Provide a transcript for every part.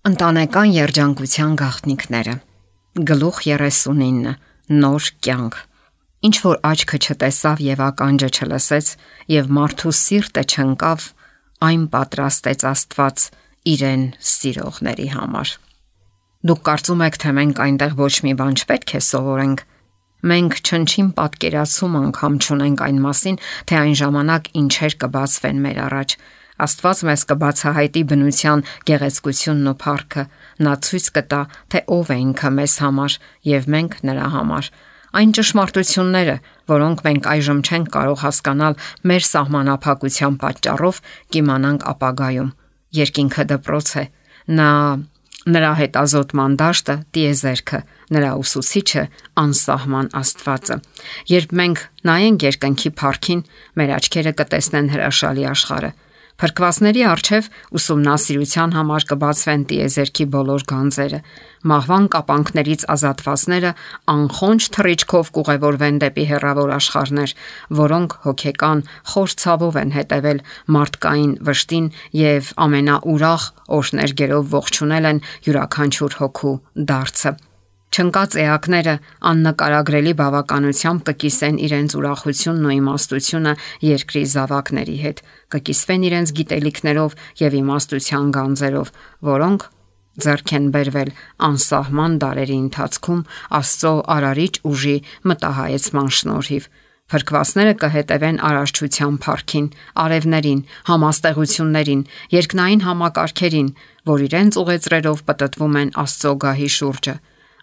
Ընտանեկան երջանկության գաղտնիքները։ Գլուխ 39. Նոր կյանք։ Ինչ որ աչքը չտեսավ եւ ականջը չլսեց եւ մարդու սիրտը չընկավ, այն պատրաստեց Աստված իրեն սիրողների համար։ Դուք կարծում եք, թե մենք այնտեղ ոչ մի բան չպետք է սովորենք։ Մենք չնչին պատկերացում անգամ չունենք այն մասին, թե այն ժամանակ ինչեր կբացվեն մեր առաջ։ Աստված մեզ կբացահայտի բնության գեղեցկությունն ու փառքը, նա ցույց կտա, թե ով է ինքը մեզ համար եւ մենք նրա համար։ Այն ճշմարտությունները, որոնք մենք այժմ չենք կարող հասկանալ մեր սահմանափակության պատճառով, կիմանանք ապագայում։ Երկինքը դպրոց է, նրա հետազոտման դաշտը տիեզերքը, նրա ուսուցիչը անսահման Աստվածը։ Երբ մենք նայենք երկնքի փառքին, մեր աչքերը կտեսնեն հրաշալի աշխարհը։ Փրկվածների առջև ուսումնասիրության համար կբացվեն տիեզերքի բոլոր գանձերը։ Մահվան կապանքներից ազատվածները անխոնջ թռիչքով կուղևորվեն դեպի հեռավոր աշխարհներ, որոնք հոգեկան խոր ցավով են հետևել մարդկային վշտին եւ ամենաուրախ օրհներգերով ողջունել են յուրաքանչյուր հոգու դարձը։ Չնկած էակները աննկարագրելի բավականությամբ կկիսեն իրենց ուրախությունն ու իմաստությունը երկրի զավակների հետ, կկիսվեն իրենց գիտելիքներով եւ իմաստության գանձերով, որոնք ձեռք են բերվել անսահման դարերի ընթացքում Աստծո արարիչ ուժի մտահայեցման շնորհիվ։ Փրկվածները կհետևեն արարչության փառքին, արևներին, համաստեղություններին, երկնային համակարգերին, որ իրենց ուղեծրերով պտտվում են Աստծո գահի շուրջը։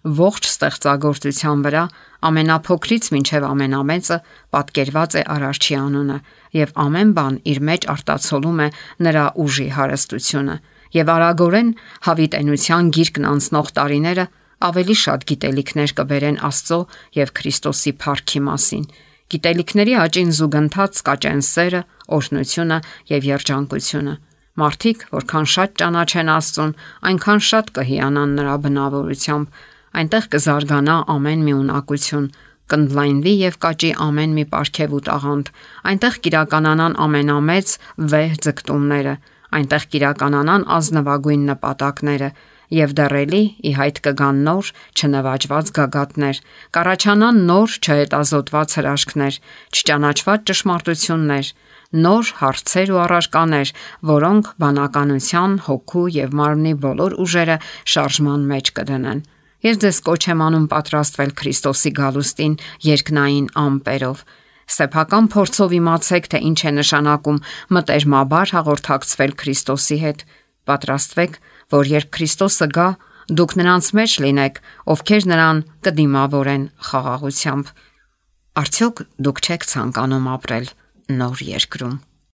Ողջ ստեղծագործության վրա ամենափոքրից մինչև ամենամեծը պատկերված է Արարչի անունը, եւ ամեն բան իր մեջ արտացոլում է նրա ուժի հարստությունը, եւ արագորեն հավիտենության գիրկն անցնող տարիները ավելի շատ գիտելիքներ կբերեն Աստծո եւ Քրիստոսի փառքի մասին։ Գիտելիքների աճին զուգընթաց կաճեն սերը, օրհնությունը եւ երջանկությունը։ Մարդիկ, որքան շատ ճանաչեն Աստծուն, այնքան շատ կհիանան նրա բնավորությամբ, այնտեղ կզարգանա ամեն մի ունակություն, կընդլայնվի եւ կաճի ամեն մի պարգև ու տաղանդ, այնտեղ կիրականանան ամենամեծ վեհ ձգտումները, այնտեղ կիրականանան ազնվագույն նպատակները եւ դեռելի ի հայտ կգան նոր չնվաճված գագաթներ, կառաջանան նոր չհետազոտված հրաշքներ, չճանաչված ճշմարտություններ, նոր հարցեր ու առարկաներ, որոնք բանականության, հոգու եւ մարմնի բոլոր ուժերը շարժման մեջ կդնեն։ Ես ձեզ կոչ եմ անում պատրաստվել Քրիստոսի գալուստին երկնային ամպերով։ Սեփական փորձով իմացեք, թե ինչ է նշանակում մտերմաբար հաղորդակցվել Քրիստոսի հետ։ Պատրաստվեք, որ երբ Քրիստոսը գա, դուք նրանց մեջ լինեք, ովքեր նրան կդիմավորեն խաղաղությամբ։ Արդյոք դուք չեք ցանկանում ապրել նոր երկրում։